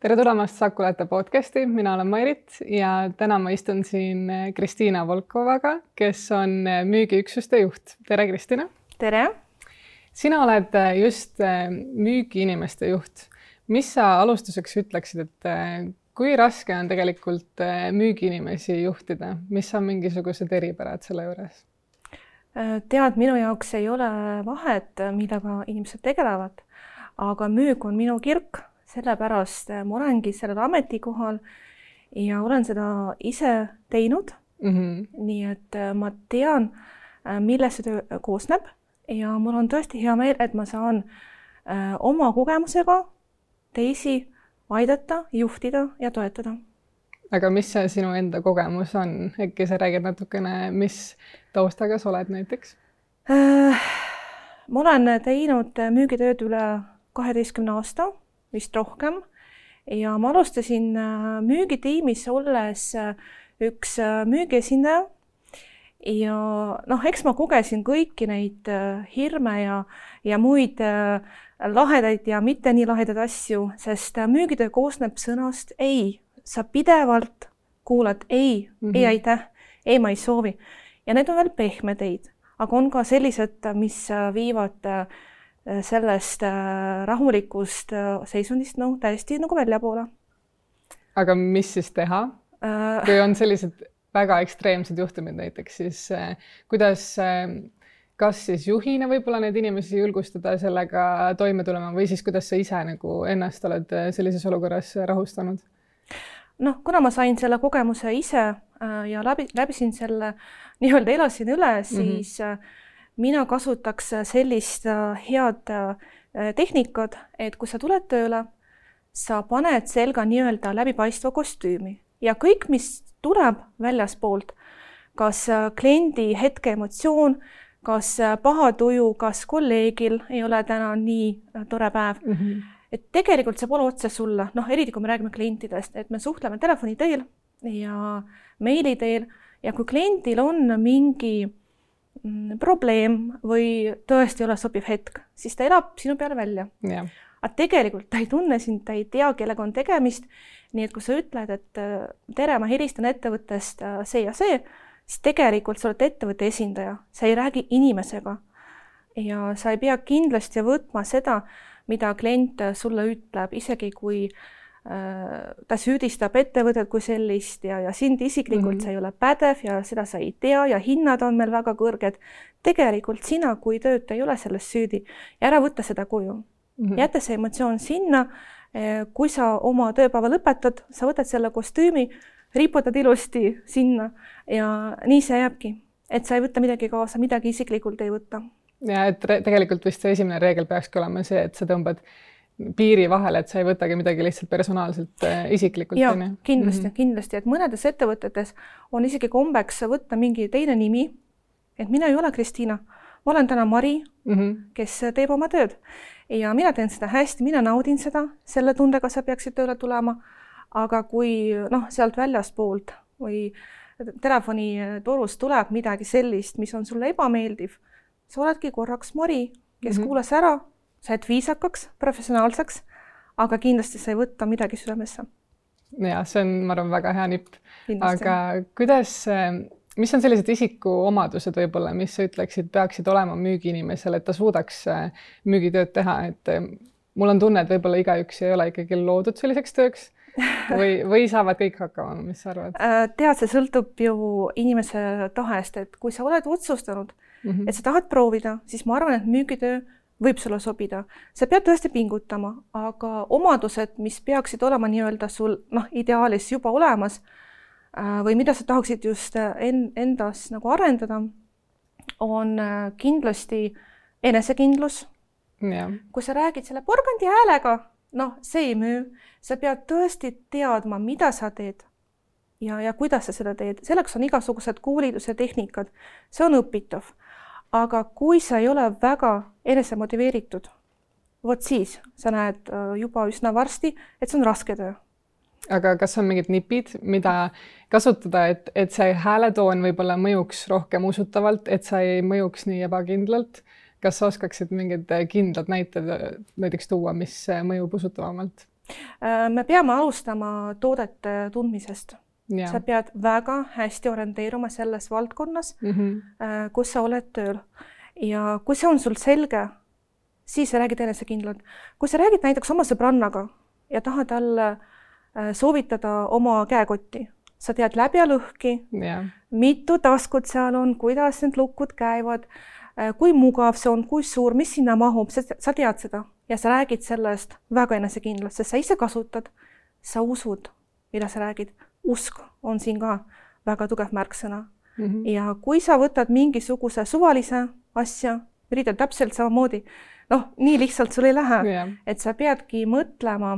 Tere tulemast Sakulete podcasti, mina olen Mairit ja täna ma istun siin Kristiina Volkovaga, kes on müügiüksuste juht. Tere, Kristiina! Tere! Sina oled just müügiinimeste juht. Mis sa alustuseks ütleksid, et kui raske on tegelikult müügiinimesi juhtida? Mis on mingisugused eripärad selle juures? Tead, minu jaoks ei ole vahet, millega inimesed tegelevad, aga müük on minu kirk, sellepärast ma olengi sellel ametikohal ja olen seda ise teinud. Nii et ma tean, millest see töö koosneb ja mul on tõesti hea meel, et ma saan oma kogemusega teisi aidata, juhtida ja toetada. Aga mis see sinu enda kogemus on? Äkki sa räägid natukene, mis taustaga sa oled näiteks? Ma olen teinud müügitööd üle 12 aasta, vist rohkem. Ja ma alustasin müügitiimis olles üks müügiesindaja. Ja eks ma kogesin kõiki neid hirme ja muid lahedaid ja mitte nii lahedaid asju, sest müügitöö koosneb sõnast ei. Sa pidevalt kuulad ei, ei aitäh, ei ma ei soovi. Ja need on veel pehmed eid, aga on ka sellised, mis viivad sellest rahulikust seisundist täiesti nagu välja poole. Aga mis siis teha? Kui on sellised väga ekstreemsed juhtumid näiteks, siis kuidas kas siis juhina võib-olla neid inimesi julgustada sellega toime tulema või siis kuidas sa ise nagu ennast oled sellises olukorras rahustanud? Kuna ma sain selle kogemuse ise ja läbisin selle nii-öelda elasin üle, siis mina kasutaks sellist head tehnikat, et kui sa tuled tööle, sa paned selga nii-öelda läbipaistva kostüümi ja kõik, mis tuleb väljaspoolt, kas kliendi hetke emotsioon, kas paha tuju, kas kolleegil ei ole täna nii tore päev, et tegelikult see pole otse sulle, eriti kui me räägime klientidest, et me suhtleme telefoni teel ja meili teel ja kui kliendil on mingi probleem või tõesti ei ole sobiv hetk, siis ta elab sinu peale välja. Yeah. Aga tegelikult ta ei tunne sind, ta ei tea, kellega on tegemist, nii et kui sa ütled, et tere, ma helistan ettevõttest see ja see, siis tegelikult sa oled ettevõtte esindaja, sa ei räägi inimesega ja sa ei pea kindlasti võtma seda, mida klient sulle ütleb, isegi kui ta süüdistab ettevõtet kui sellist ja sind isiklikult sa ei ole pädev ja seda sa ei tea ja hinnad on meil väga kõrged. Tegelikult sina, kui tööd ei ole sellest süüdi ja ära võtta seda kuju. Jäta see emotsioon sinna, kui sa oma tööpäeva lõpetad, sa võtad selle kostüümi, riputad ilusti sinna ja nii see jääbki, et sa ei võtta midagi kaasa, midagi isiklikult ei võtta. Ja et tegelikult vist see esimene reegel peakski olema see, et sa tõmbad piiri vahele, et sa ei võtagi midagi lihtsalt personaalselt isiklikult. Ja, kindlasti, et mõnedes ettevõtetes on isegi kombeks võtta mingi teine nimi, et mina ei ole Kristiina, ma olen täna Mari, kes teeb oma tööd ja mina teen seda hästi, mina naudin seda, selle tundega sa peaksid tööle tulema, aga kui sealt väljaspoolt või telefonitorust tuleb midagi sellist, mis on sulle ebameeldiv, sa oledki korraks Mari, kes kuulas ära, sa oled viisakaks, professionaalseks, aga kindlasti sa ei võtta midagi südamesse. Ja, see on, ma arvan, väga hea nipp. Aga mis on sellised isikuomadused võib-olla, mis sa ütleksid, peaksid olema müügiinimesel, et ta suudaks müügitööd teha? Et mul on tunne, et võib-olla igaüks ei ole ikkagi loodud selliseks tööks või saavad kõik hakkama, mis sa arvad? Tead, see sõltub ju inimese tahest, et kui sa oled otsustanud, et sa tahad proovida, siis ma arvan, et müügitöö võib sulle sobida. Sa pead tõesti pingutama, aga omadused, mis peaksid olema nii-öelda sul ideaalis juba olemas või mida sa tahaksid just endas nagu arendada, on kindlasti enesekindlus. Ja. Kui sa räägid selle porgandi häälega, see ei müü. Sa pead tõesti teadma, mida sa teed ja kuidas sa seda teed. Selleks on igasugused koolitus ja tehnikad. See on õpitav. Aga kui sa ei ole väga enesemotiveeritud, vot siis sa näed juba üsna varsti, et see on raske töö. Aga kas on mingid nipid, mida kasutada, et see hääletoon võib-olla mõjuks rohkem usutavalt, et sa ei mõjuks nii ebakindlalt? Kas sa oskaksid mingid kindlad näited näiteks tuua, mis mõjub usutavamalt? Me peame alustama toodete tundmisest. Sa pead väga hästi orienteeruma selles valdkonnas, kus sa oled tööl. Ja kui see on sul selge, siis sa räägid enesekindlalt. Kui sa räägid näiteks oma sõbrannaga ja tahad talle soovitada oma käekotti, sa tead läbi ja lõhki, mitu taskut seal on, kuidas need lukud käivad, kui mugav see on, kui suur, mis sinna mahub, sa tead seda ja sa räägid sellest väga enesekindlalt, sest sa ise kasutad, sa usud, mida sa räägid. Usk on siin ka väga tugev märksõna. Ja kui sa võtad mingisuguse suvalise asja, üritad täpselt samamoodi, nii lihtsalt sul ei lähe, et sa peadki mõtlema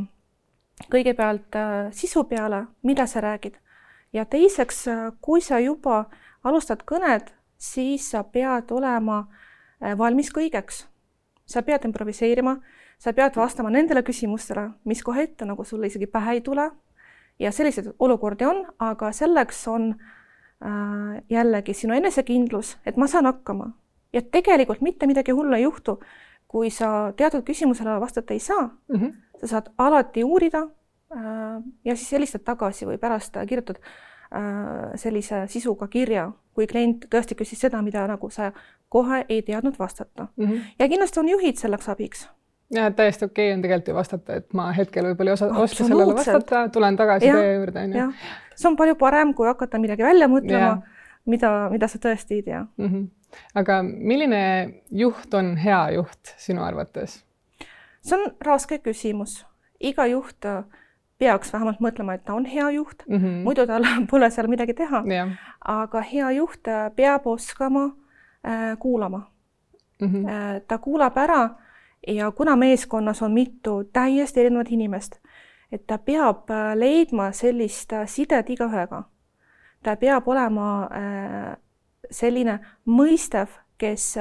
kõigepealt sisu peale, mida sa räägid. Ja teiseks, kui sa juba alustad kõned, siis sa pead olema valmis kõigeks. Sa pead improviseerima, sa pead vastama nendele küsimustele, mis kohe ette, nagu sulle isegi pähe ei tule. Ja sellised olukordi on, aga selleks on jällegi sinu enesekindlus, et ma saan hakkama. Ja tegelikult mitte midagi hullu ei juhtu, kui sa teatud küsimusele vastata ei saa. Sa saad alati uurida ja siis helistad tagasi või pärast kirjutad sellise sisuga kirja, kui klient tõesti küsis seda, mida nagu sa kohe ei teadnud vastata. Ja kindlasti on juhid selleks abiks. Ja täiesti okei on tegelikult ju vastata, et ma hetkel võib-olla ei oska sellele vastata, tulen tagasi teie juurde. See on palju parem, kui hakata midagi välja mõtlema, mida sa tõesti ei tea. Aga milline juht on hea juht sinu arvates? See on raske küsimus. Iga juht peaks vähemalt mõtlema, et ta on hea juht. Muidu tal pole seal midagi teha. Aga hea juht peab oskama kuulama. Ta kuulab ära ja kuna meeskonnas on mitu täiesti erinevat inimest, et ta peab leidma sellist sidet igaühega. Ta peab olema selline mõistev, kes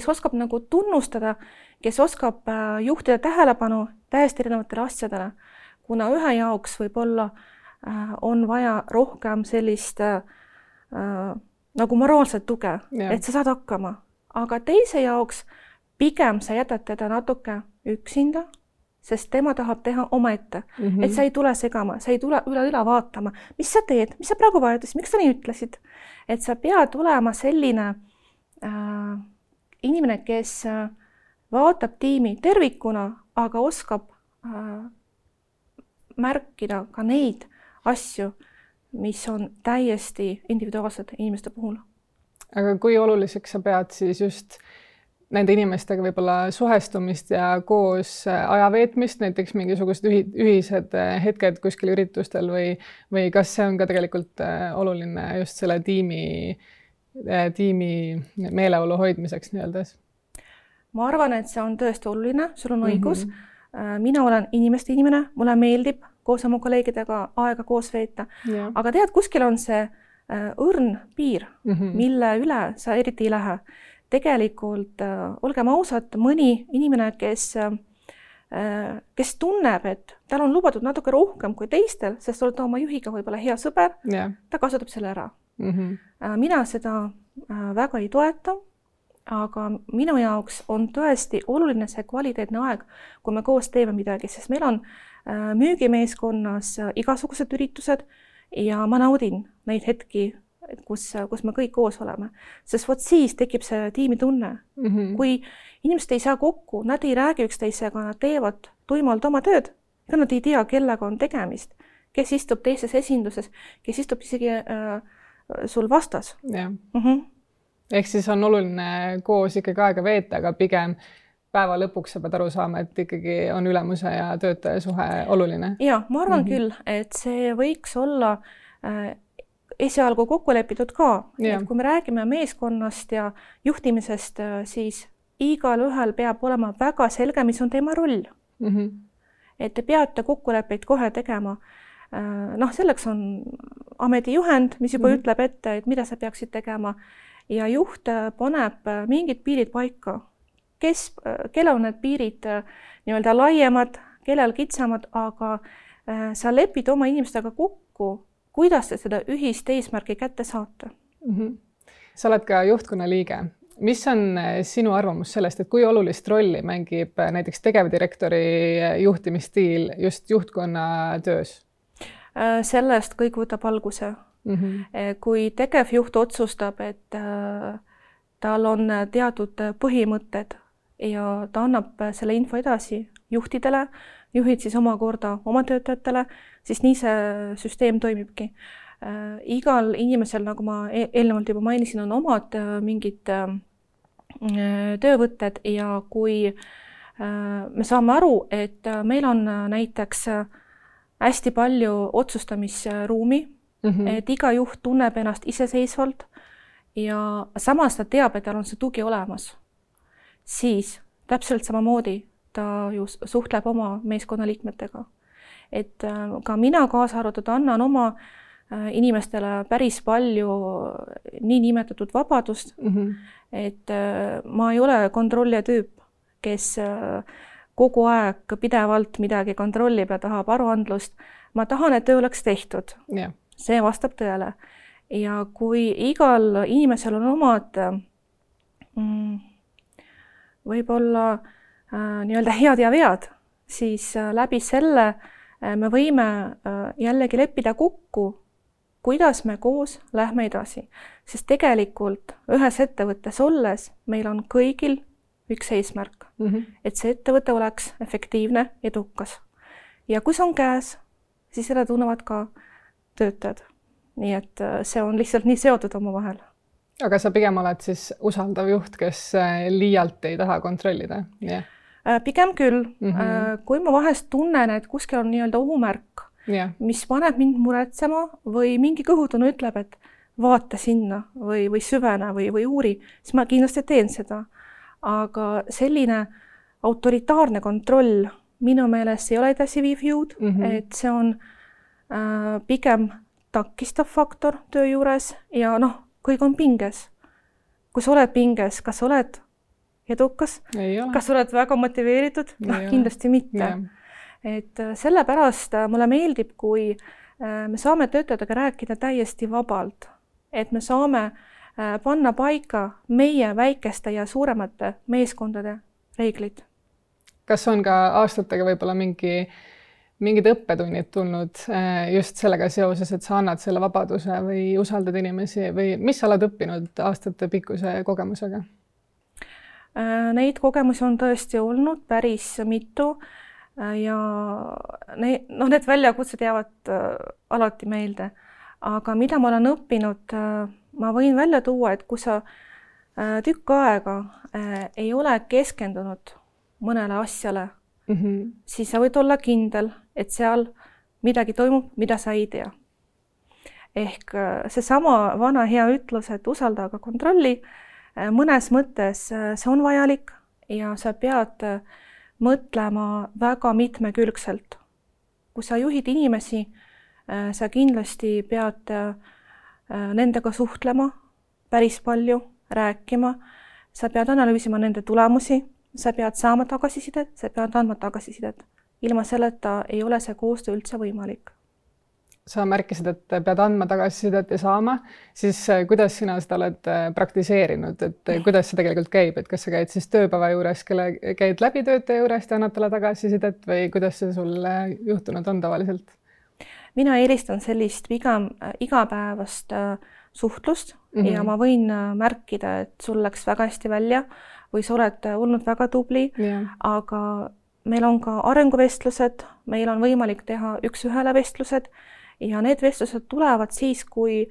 oskab nagu tunnustada, kes oskab juhtida tähelepanu täiesti erinevatele asjadele, kuna ühe jaoks võib-olla on vaja rohkem sellist nagu moraalset tuge, et sa saad hakkama. Aga teise jaoks pigem sa jätad teda natuke üksinda, sest tema tahab teha omaette. Et sa ei tule segama, sa ei tule üle vaatama, mis sa teed, mis sa praegu vajutasid, miks sa nii ütlesid. Et sa pead olema selline inimene, kes vaatab tiimi tervikuna, aga oskab märkida ka neid asju, mis on täiesti individuaalsed inimeste puhul. Aga kui oluliseks sa pead siis just nende inimestega võib-olla suhestumist ja koos aja veetmist, näiteks mingisugused ühised hetked kuskil üritustel või kas see on ka tegelikult oluline just selle tiimi meeleolu hoidmiseks nii-öeldes? Ma arvan, et see on tõesti oluline, sul on õigus. Mina olen inimeste inimene, mulle meeldib koos oma kolleegidega aega koos veeta, aga tead, kuskil on see õrn piir, mille üle sa eriti ei lähe. Tegelikult, olgem ausad, mõni inimene, kes tunneb, et tal on lubatud natuke rohkem kui teistel, sest oled oma juhiga võib-olla hea sõber, ta kasutab selle ära. Mina seda väga ei toeta, aga minu jaoks on tõesti oluline see kvaliteetne aeg, kui me koos teeme midagi, sest meil on müügimeeskonnas igasugused üritused ja ma naudin neid hetki, kus me kõik koos oleme. Sest vot siis tekib see tiimitunne. Kui inimesed ei saa kokku, nad ei räägi üksteisega, nad teevad tuimalt oma tööd, ega nad ei tea, kellega on tegemist, kes istub teises esinduses, kes istub isegi sul vastas. Ehk siis on oluline koos ikkagi aega veeta, aga pigem päeva lõpuks sa pead aru saama, et ikkagi on ülemuse ja töötaja suhe oluline. Ja, ma arvan küll, et see võiks olla esialgu kokku lepitud ka. Et kui me räägime meeskonnast ja juhtimisest, siis igal ühel peab olema väga selge, mis on tema roll. Et te peate kokkuleppeid kohe tegema. Selleks on ametijuhend, mis juba ütleb ette, et mida sa peaksid tegema. Ja juht paneb mingid piirid paika. Kellel on need piirid nii-öelda laiemad, kellel kitsamad, aga sa lepid oma inimestega kokku, kuidas te seda ühist eesmärki kätte saate. Sa oled ka juhtkonna liige. Mis on sinu arvamus sellest, et kui olulist rolli mängib näiteks tegevdirektori juhtimisstiil just juhtkonna töös? Sellest kõik võtab alguse. Kui tegevjuht otsustab, et tal on teatud põhimõtted ja ta annab selle info edasi juhtidele, juhid siis omakorda oma töötajatele, siis nii see süsteem toimibki. Igal inimesel, nagu ma eelnevalt juba mainisin, on omad mingid töövõtted ja kui me saame aru, et meil on näiteks hästi palju otsustamisruumi, et iga juht tunneb ennast iseseisvalt ja samas ta teab, et tal on see tugi olemas, siis täpselt samamoodi ta ju suhtleb oma meeskonnaliikmetega. Et ka mina kaasa arvatud annan oma inimestele päris palju niinimetatud vabadust, et ma ei ole kontrollija tüüp, kes kogu aeg pidevalt midagi kontrollib ja tahab aruandlust. Ma tahan, et töö oleks tehtud. Yeah. See vastab tõele. Ja kui igal inimesel on omad võib-olla nii-öelda head ja vead, siis läbi selle me võime jällegi leppida kokku, kuidas me koos lähme edasi. Sest tegelikult ühes ettevõttes olles meil on kõigil üks eesmärk, et see ettevõte oleks efektiivne, edukas. Ja kui see on käes, siis seda tunnevad ka töötajad. Nii et see on lihtsalt nii seotud omavahel. Aga sa pigem oled siis usaldav juht, kes liialt ei taha kontrollida? Yeah. Pigem küll. Kui ma vahest tunnen, et kuskil on nii-öelda ohumärk, mis paneb mind muretsema või mingi kõhutunne ütleb, et vaata sinna või süvene või uuri, siis ma kindlasti teen seda. Aga selline autoritaarne kontroll minu meelest ei ole edasi viiv jõud, et see on pigem takistav faktor töö juures ja kõik on pinges. Kui sa oled pinges, kas oled edukas? Kas oled väga motiveeritud? Kindlasti mitte. Yeah. Et sellepärast mulle meeldib, kui me saame töötajatega rääkida täiesti vabalt, et me saame panna paika meie väikeste ja suuremate meeskondade reeglid. Kas on ka aastatega võib-olla mingid õppetunnid tulnud just sellega seoses, et sa annad selle vabaduse või usaldad inimesi või mis sa oled õppinud aastate pikkuse kogemusega? Neid kogemusi on tõesti olnud päris mitu ja need väljakutsed jäävad alati meelde. Aga mida ma olen õppinud, ma võin välja tuua, et kui sa tükk aega ei ole keskendunud mõnele asjale, siis sa võid olla kindel, et seal midagi toimub, mida sa ei tea. Ehk seesama vana hea ütlus, et usalda aga kontrolli, mõnes mõttes see on vajalik ja sa pead mõtlema väga mitmekülgselt. Kui sa juhid inimesi, sa kindlasti pead nendega suhtlema päris palju, rääkima, sa pead analüüsima nende tulemusi, sa pead saama tagasisidet, sa pead andma tagasisidet. Ilma selleta ei ole see koostöö üldse võimalik. Sa märkisid, et pead andma tagasisidet ja saama, siis kuidas sina seda oled praktiseerinud, et kuidas see tegelikult käib, et kas sa käid siis tööpäeva juures, käid läbi töötaja juurest ja annad talle tagasisidet või kuidas see sul juhtunud on tavaliselt? Mina eelistan sellist pigem igapäevast suhtlust ja ma võin märkida, et sul läks väga hästi välja või sa oled olnud väga tubli, aga meil on ka arenguvestlused, meil on võimalik teha üks-ühele vestlused ja need vestlused tulevad siis, kui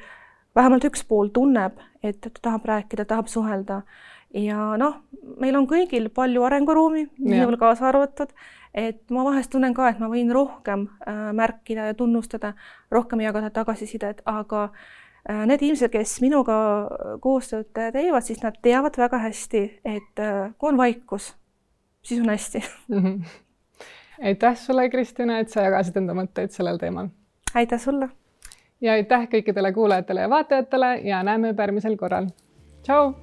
vähemalt üks pool tunneb, et ta tahab rääkida, tahab suhelda. Ja meil on kõigil palju arenguruumi, minul kaasa arvatud, et ma vahest tunnen ka, et ma võin rohkem märkida ja tunnustada, rohkem jagada tagasisidet, aga need inimesed, kes minuga koostööd teevad, siis nad teavad väga hästi, et kui on vaikus, siis on hästi. Aitäh sulle, Kristina, et sa jagasid enda mõtteid sellel teemal. Aitäh sulle! Ja aitäh kõikidele kuulajatele ja vaatajatele ja näeme järgmisel korral. Tšau!